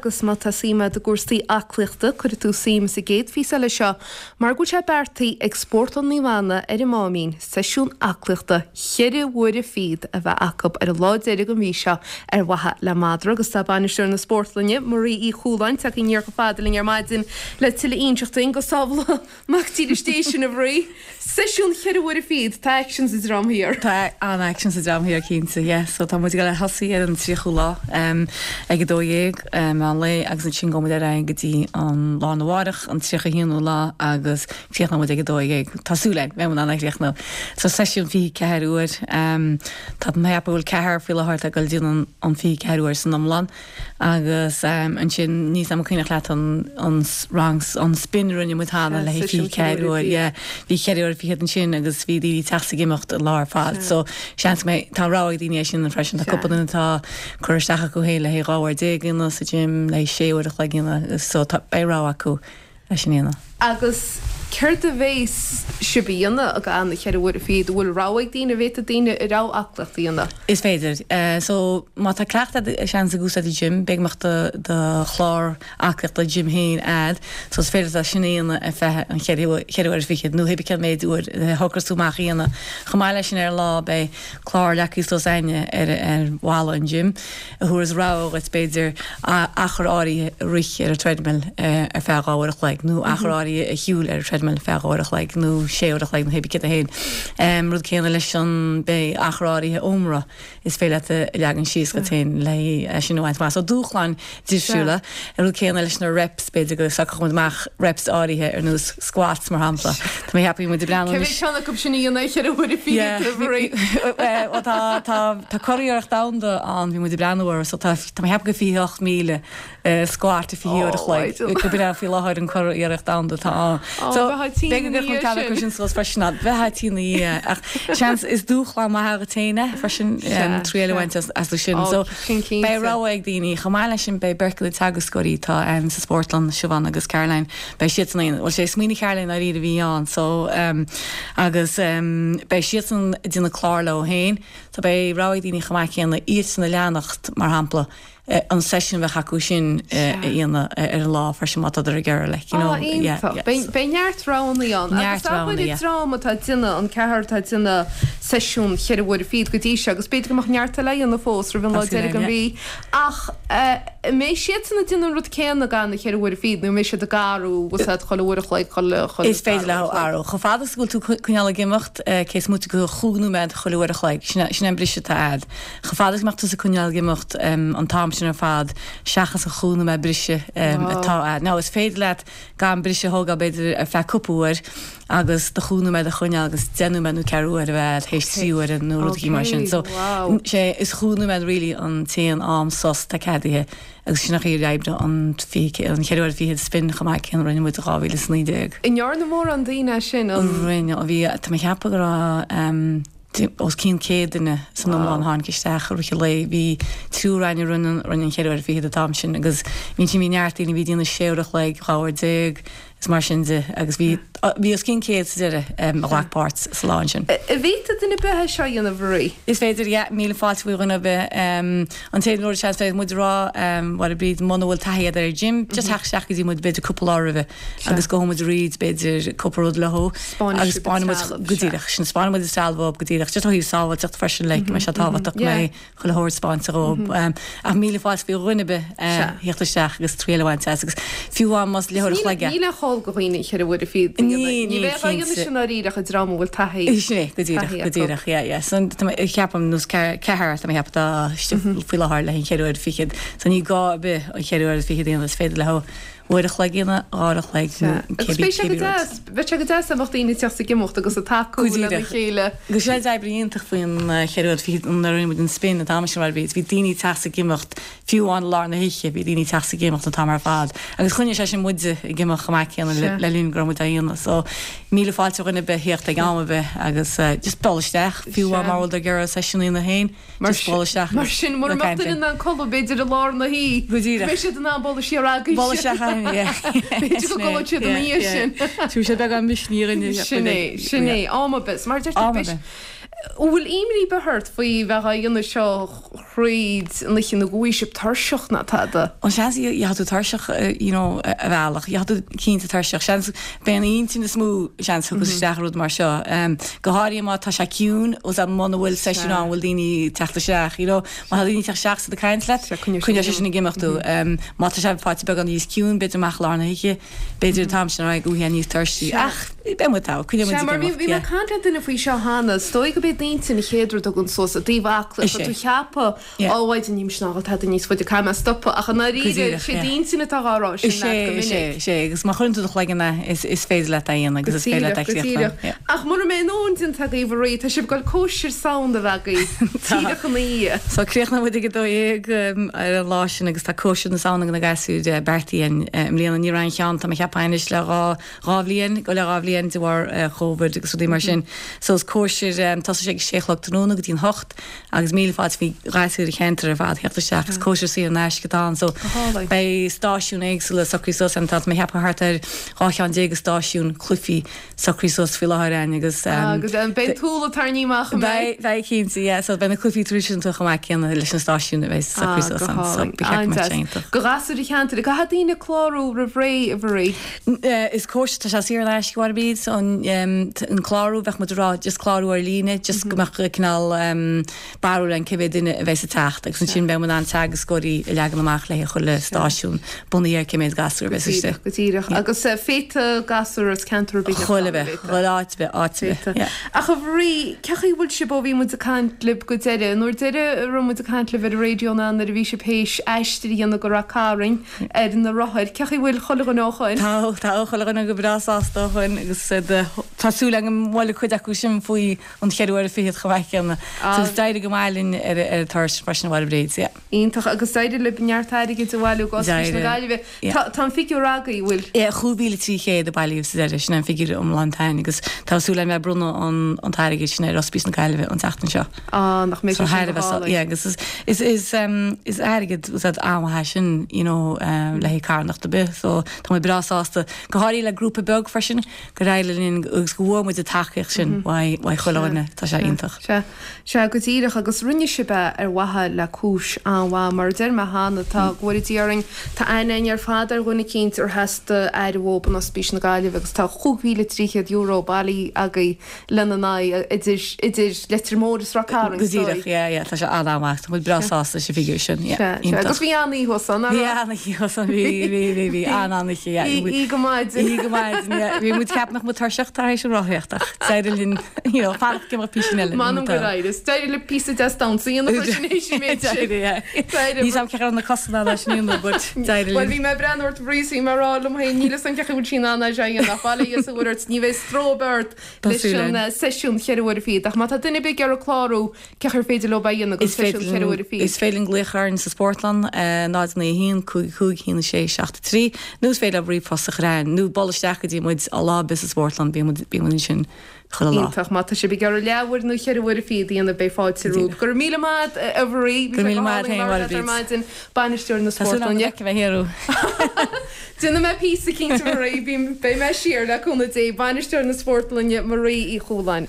Agus má tá suim agat i gcúrsaí aclaíochta, cuirfidh tú suim sa gcéad phíosa eile seo mar go bhfuil sé beartaithe ag Spórtlann Naomh Anna ar an Máimín seisiún aclaíochta cheithre huaire fichead a bheith acu ar an lá deiridh den mhí seo ar mhaithe le madra. Agus tá bainisteoir na spórtlainne, Marie Uí Chualáin, tagtha aniar chomh fada linn ar maidin le tuilleadh a inseacht dúinn. Go sábhála Mac dílis Dé sinn, a Mharie. Seisiún cheithre huaire fichead, tá aicsean sa Dream Thiar. Tá an-aicsean sa Dream Thiar cinnte, yeah. So tá muid ag dul a thosaí ar an 30ú lá ag 12 meán lae agus ansin gabhfaidh muid ar aghaidh go dtí an lá arna mhárach, an 31ú lá agus críochnóidh muid ag 12. Tá súil againn, beidh muid in ann a chríochnú. So seisiún 24 uair. Tá mé ag ceapadh go bhfuil ceathrar faoi láthair atá ag dul ag déanamh an 24 uair san iomlán. Agus ansin, níl 's a'm an cuimhneach leat an an rang an spin a rinne muid cheana le haghaidh 24 uair, yeah. Bhí cheithre uair fichead ansin agus bhí daoine ag teacht 's ag imeacht an lá ar fad. So seans go mbeidh, tá rogha ag daoine é sin freisin. Tá cúpla duine atá curtha isteach acu féin le haghaidh 12 uair a dhéanamh sa gym, le haghaidh sé uair a chloig a dhéanamh. So tá, beidh rogha acu. leis an dhéanamh. Agus céard a bhéas sibh a dhéanamh ag an cheithre huaire fichead? An bhfuil rogha ag daoine? An bhféadfaidh daoine a rogha aclaíocht a dhéanamh? Is féidir. So, má tá cleachtadh agat, seans ag úsáid an gym, b'fhéidir go mbeadh do do chlár aclaíochta gym féin a'd, so is féidir leat sin a dhéanamh ar feadh an cheithre cheithre huaire fichead nó hébí cén méid uair a shocras tú amach a dhéanamh. Chomh maith leis sin ar an lá beidh clár leagtha suas a'inne ar ar bhalla an gym. a thabharfas rogha dhuit, b'fhéidir, achar áirithe a rith ar an treadmill ar feadh 2 uair a chloig, nó achar áirithe a shiúl ar an treadmill ar feadh 2 uair a chloig, nó 6 uair a chloig, nó hébí céard é féin. Rud céanna leis an, beidh achar áirithe ómra is féidir leat a leagan síos dhuit féin le é sin a bhaint amach. So dúshláin difriúla. An rud céanna leis na reps, b'fhéidir go socródh muid amach reps áirithe ar nós squats mar shampla. Tá mé ag ceapadh bhí muid ag breathnú anois. Cé mhéad ceann acu sin a dhéanamh ar cheithre huaire fichead, a Mharie? Bhuel tá, tá, tá curiarracht domhanda ann, bhí muid ag breathnú air, so tá, tá mé ag ceapadh gur 28,000 squat i 20 uair a chloig, go b'in é faoi láthair an curiarracht domhanda atá ann. So b'fhéidir go gcuirfeadh muid ceann acu sin suas freisin, bheifeá tinn ina dhiaidh ach seans is dúshlán maith dhuit féin é freisin triail a bhaint astu sin. So beidh rogha ag daoine. Chomh maith leis sin beidh beirt de na teagascóirí atá ann sa spórtlann, Siobhán agus Caroline, beidh siadsan ag, bhuel sé smaoineamh Caroline dáiríre a bhí ann so agus beidh siadsan ag déanamh clár leo féin so beidh rogha ag daoine chomh maith céanna iadsan a leanacht mar shampla an seisiún a bheadh acu sin a dhéanamh ar an lá freisin má tádar ag iarraidh like you know yeah yeah. Beidh beidh neart roghanna ann agus Neart abair roghanna an yeah. dream atá ag déanamh an ceathrar atá ag déanamh seisiún cheithre huaire fichead go dtí seo agus b'fhéidir go mbeadh neart eile á dhéanamh fós roimh an lá Tá súil deiridh againn den yeah. mhí ach an mbeidh siadsan ag déanamh an rud céanna gan na cheithre huaire fichead nó an mbeidh siad ag athrú agus iad chuile uair a chloig chuile chuile Is féidir dara leo uair a chloig. athrú. Chomh fada is go bhfuil tú coinneáil ag imeacht cé is móite de chúig nóiméad chuile uair a chloig sin é sin é an briseadh atá a'd. Chomh fada is go mbeadh tusa ag coinneáil ag imeacht an t-am sin ar fad, seachas an chúig nóiméad briseadh atá a'd. Now, is féidir leat gan briseadh a thógáil b'fhéidir ar feadh cúpla uair agus do chúig nóiméad a choinneáil agus 10 nóiméad nó ceathrú uair a bheith a'd théis trí uaire nó rud éigin mar sin. So, sé, is chúig nóiméad really an t-aon am sos atá ceadaithe agus sin an chaoi a oibreoidh an 20, an cheithre huaire fichead spin chomh maith céanna a rinne muid i 2019. An ndearna mórán daoine é sin, an. Rinne, bhí, tá mé ag ceapadh go raibh, os cionn 100 duine san iomlán a tháinig isteach i rith an lae. Bhí triúr againn a rinne an cheithre huaire fichead an t-am sin agus bhí ansin bhí neart daoine a bhí ag déanamh sé uair a chloig, 12 uair is mar sin de agus bhí bhí os cionn 100 sa deireadh a ghlac páirt sa lá ansin. An bhféadfadh duine ar bith é seo a dhéanamh, a Mharie? Is féidir, yeah, míle fáilte faoi dhuine ar bith. An t-aon rud seans bheadh muid a rá, Mháire Bríd, muna bhfuil taithí agat ar an gym, just theacht isteach go dtí muid b'fhéidir cúpla lá roimhe. agus gabhfaidh muid thríd b'fhéidir cúpla rud leo agus 'spáinfidh muid go díreach sin 'spáinfidh muid an trealamh dhóibh go díreach just ó thaobh sábháilteacht freisin like go mbeidh sé tábhachtach go mbeidh chuile shórt 'spáinte dhóibh ach míle fáilte faoi dhuine ar bith theacht isteach agus triail a bhaint as agus fiú amháin más leathuair a chloig é. Níl aon chall do dhaoine an cheithre huaire fichead a dhéanamh. Ní bheadh á dhéanamh sin dáiríre ach an dream a bhfuil taithí Sin é, go díreach, go díreach, yeah, yeah. So tá mé, ceapaim, nós ceathrar, tá mé ag ceapadh atá istigh faoi láthair le haghaidh an cheithre huaire fichead. So ní gá ar bith an cheithre huaire fichead a dhéanamh, is féidir leo uair a chloig a dhéanamh, dhá uair a chloig nó Agus cibé beidh sé go cibé rud. deas, bheadh sé go deas dá mbeadh daoine ag teacht ag imeacht agus ag tacú Go lena díreach. chéile. Agus sé an obair iontach faoin cheithre huaire fichead nuair a rinne muid an spin an t-am sin mar bhí bhí daoine ag teacht ag imeacht fiú amháin i lár na hoíche bhí daoine ag teacht ag imeacht an t-am ar fad agus choinnigh sé sin muide ag imeacht chomh maith céanna le Sea. le linn go raibh muid á dhéanamh so míle fáilte roimh dhuine ar bith theacht ag am ar bith agus just dul isteach fiú amháin Sea. mura bhfuil tú ag iarraidh seisiún a dhéanamh féin. Mar Just bualadh isteach Mar sin, mura mbeadh duine in ann codladh, b'fhéidir, i lár na hoíche, Go díreach. beidh siad in ann bualadh siar agaibhse. Bualadh isteach againn, yeah. B'fhéidir go gcodlóidh siad ina dhiaidh sin. Tabharfaidh sé beagán misnigh dhuine. Sin é, sin é. Am ar bith. Mar a deirtear, Am ar beidh bith. An bhfuil imní ar bith ort faoi bheith á dhéanamh seo thríd an oíche nó go bhfaighidh sibh tuirseach ná tada? An seans gheobhaidh tú tuirseach you know ar bhealach, gheobhaidh tú cinnte tuirseach. Seans b'é an intinn is mó seans thiocfas isteach i rud mar seo. Go háirithe má tá sé ciúin agus muna bhfuil seisiún ann bhfuil daoine ag teacht isteach you know. Má tá daoine ag teacht isteach is ag caint leat, coinneoidh sé sin ag imeacht thú. Má tá sé faighte beagán níos ciúin b'fhéidir amach i lár na hoíche, B'fhéidir an t-am sin ar aghaidh go bhfaighidh níos tuirsí, ach beidh muid togha, coinneoidh muid ag imeacht, Sea, mar bhí mé ag caint le duine faoi seo cheana, is dóigh go b'é d'intinn an chéad rud a thagann suas i dtaobh aclaíochta, tú cheapadh, á mhaighdean, níl mise in ann tada níos faide, caithfidh mé stopadh, ach i ndáiríre, sé d'intinn atá á rá sin leat go minic. Is é, is é, agus má chuireann tú do chloigeann é, is féidir leat é a dhéanamh agus is féidir leat é a chríochnú. Go díreach. Ach mura mbeidh an nóin déanta agaibh a Mharie, tá sibh ag dul cóisir Samhna a bheith agaibh, díreach ina dhiaidh. So críochnóidh muid ag 12 ar an lá sin agus tá cóisir na Samhna ag na gasúir beartaithe againn i mbliana. Ní raibh aon cheann, tá mé ag ceapadh anois le 2 dhá bhliain, go leith 2 bhliain de bharr Covid agus rudaí mar sin. So is cóisir, tosóidh sé ag sé a chlog tráthnóna go dtí an hocht agus míle fáilte faoi ghasúir an cheantair ar fad theacht isteach. Is cóisir saor in aisce atá ann so beidh stáisiúin éagsúla socraithe suas ann. Tá mé ag ceapadh thart ar 12 cheann de stáisiúin cluichí socraithe suas faoi láthair againn agus. Agus beidh an t-úll ag tarraingt amach, an mbeidh? Beidh, beidh cinnte, yeah. So beidh na cluichí traidisiúnta chomh maith céanna leis na stáisiúin a bheidh socraithe suas ann. So ba cheart go mbeadh sé iontach. Do ghasúir an cheantair, caithfidh daoine clárú roimh ré, a Mharie? Is cóisir, tá sé saor in aisce, a Mhairéad, so an clárú, bheadh muid ag rá just clárú ar líne, just go mbeadh cineál barúil againn cé mhéad duine a bheas ag teacht agus ansin beidh muid in ann teagascóirí a leagan amach le haghaidh chuile stáisiún bunaithe ar cé mhéad gasúr a bheas istigh. Go díreach, go díreach. Agus féadfaidh gasúr as ceantar ar bith theacht ann, an bhféadfadh? Chuile áit ar bith, áit ar bith, yeah. Ach a Mharie, cé chaoi a bhfuil sibh ó bhí muid ag caint libh go deireadh? An uair deireadh a raibh muid ag caint libh ar an raidió ná nuair a bhí sibh théis aistear a dhéanamh go Rath Cairn ar na rothair. Cé chaoi a bhfuil chuile dhuine ó shoin? Tá, tá chuile dhuine go breá sásta ó shoin agus tá súil agam go bhfuil cuid acu sin faoi an cheithre huaire fichead chomh maith céanna. So is d'éirigh go maith linn ar an turas freisin a Mhairéad, yeah. Iontach, agus d'éirigh libh neart airgid a bhailiú go Ospís na Gaillimhe. Tá tá an figiúr agaibh, bhfuil? Yeah, 5,300 a bailíodh sa deireadh, sin é an figiúr iomlán atá againn agus tá súil againn bheith ag bronnadh an an t-airgead sin ar Ospís na Gaillimhe an tseachtain seo. Ah, nach mbeidh sé sin go hálainn. Yeah, agus is is is is airgead úsáid an-mhaith é sin, you know, le haghaidh carthanacht ar bith, so tá muid breá sásta, go háirithe le grúpa beag freisin, gur éirigh linn agus go bhfuair muid an tacaíocht sin uaidh chuile dhuine, tá sé iontach. Sea, sea, go díreach, agus rinne sibh é ar mhaithe le cúis an-mhaith, mar a deir mé cheana, tá, go bhfóire Dia orainn, tá aithne againn ar fad ar dhuine eicínt ar theastaigh aire uathub in Ospís na Gaillimhe agus tá €5,300 bailithe agaibh lena n-aghaidh, idir, idir Leitir Móir is Ráth Cairn, Go díreach, yeah, yeah, tá sé an-an-mhaith, tá muid breá sásta leis an bhfigiúr sin, yeah, Sea, sea, agus bhí an-oíche thuas ann, nach raibh? Bhí an-oíche thuas ann, bhí, bhí, bhí, bhí, an-an-oíche, yeah. Oíche go maidin. Oíche go maidin, yeah. Bhí muid ag ceapadh nach mbeadh tuirseach tar éis an rothaíocht ach d'éirigh linn, you know, fanacht go mbeadh píosa eile. M'anam gur éirigh. D'éirigh libh píosa deas damhsa a dhéanamh freisin théis an méid sin. D'éirigh, yeah. D'éirigh. Níl 's a'm cé raibh na cosa in ann é sin a dhéanamh but d'éirigh linn. Bhuel, bhí mé ag breathnú ort Marie is bhí mé ag rá liom féin, níl 'fhios a'm cé chaoi bhfuil sí in ann é seo a dhéanamh ach bail ó Dhia is a Mhuire ort, ní bheidh stró ar bith ort leis an seisiún cheithre huaire fichead. Ach má tá duine ar bith ag iarraidh clárú, cé chaoi ar féidir leo é a dhéanamh don seisiún cheithre huaire fichead? Is féidir linn glaoch orainn sa Spórtlann, 0 9 1 5 5 1 6 7 3, nó is féidir leo ríomhphost a chur chugainn, nó bualadh isteach go dtí muid lá ar bith sa Spórtlann, bíonn muid bíonn muid ansin chuile lá. Iontach. Má tá sibh ag iarraidh leathuair nó cheithre huaire fichead a dhéanamh, beidh fáilte romhaibh. Go raibh míle maith agat, a Mharie. Bhí sé go hálainn labhairt leat ar maidin, bainisteoir na Tá súil agam go Spórtlainne. bhfeicfidh mé thiar thú. Déanfaidh mé píosa cinnte Marie, beidh mé siar le cúnamh Dé. Bainisteoir na Spórtlainne, Marie Uí Chualáin.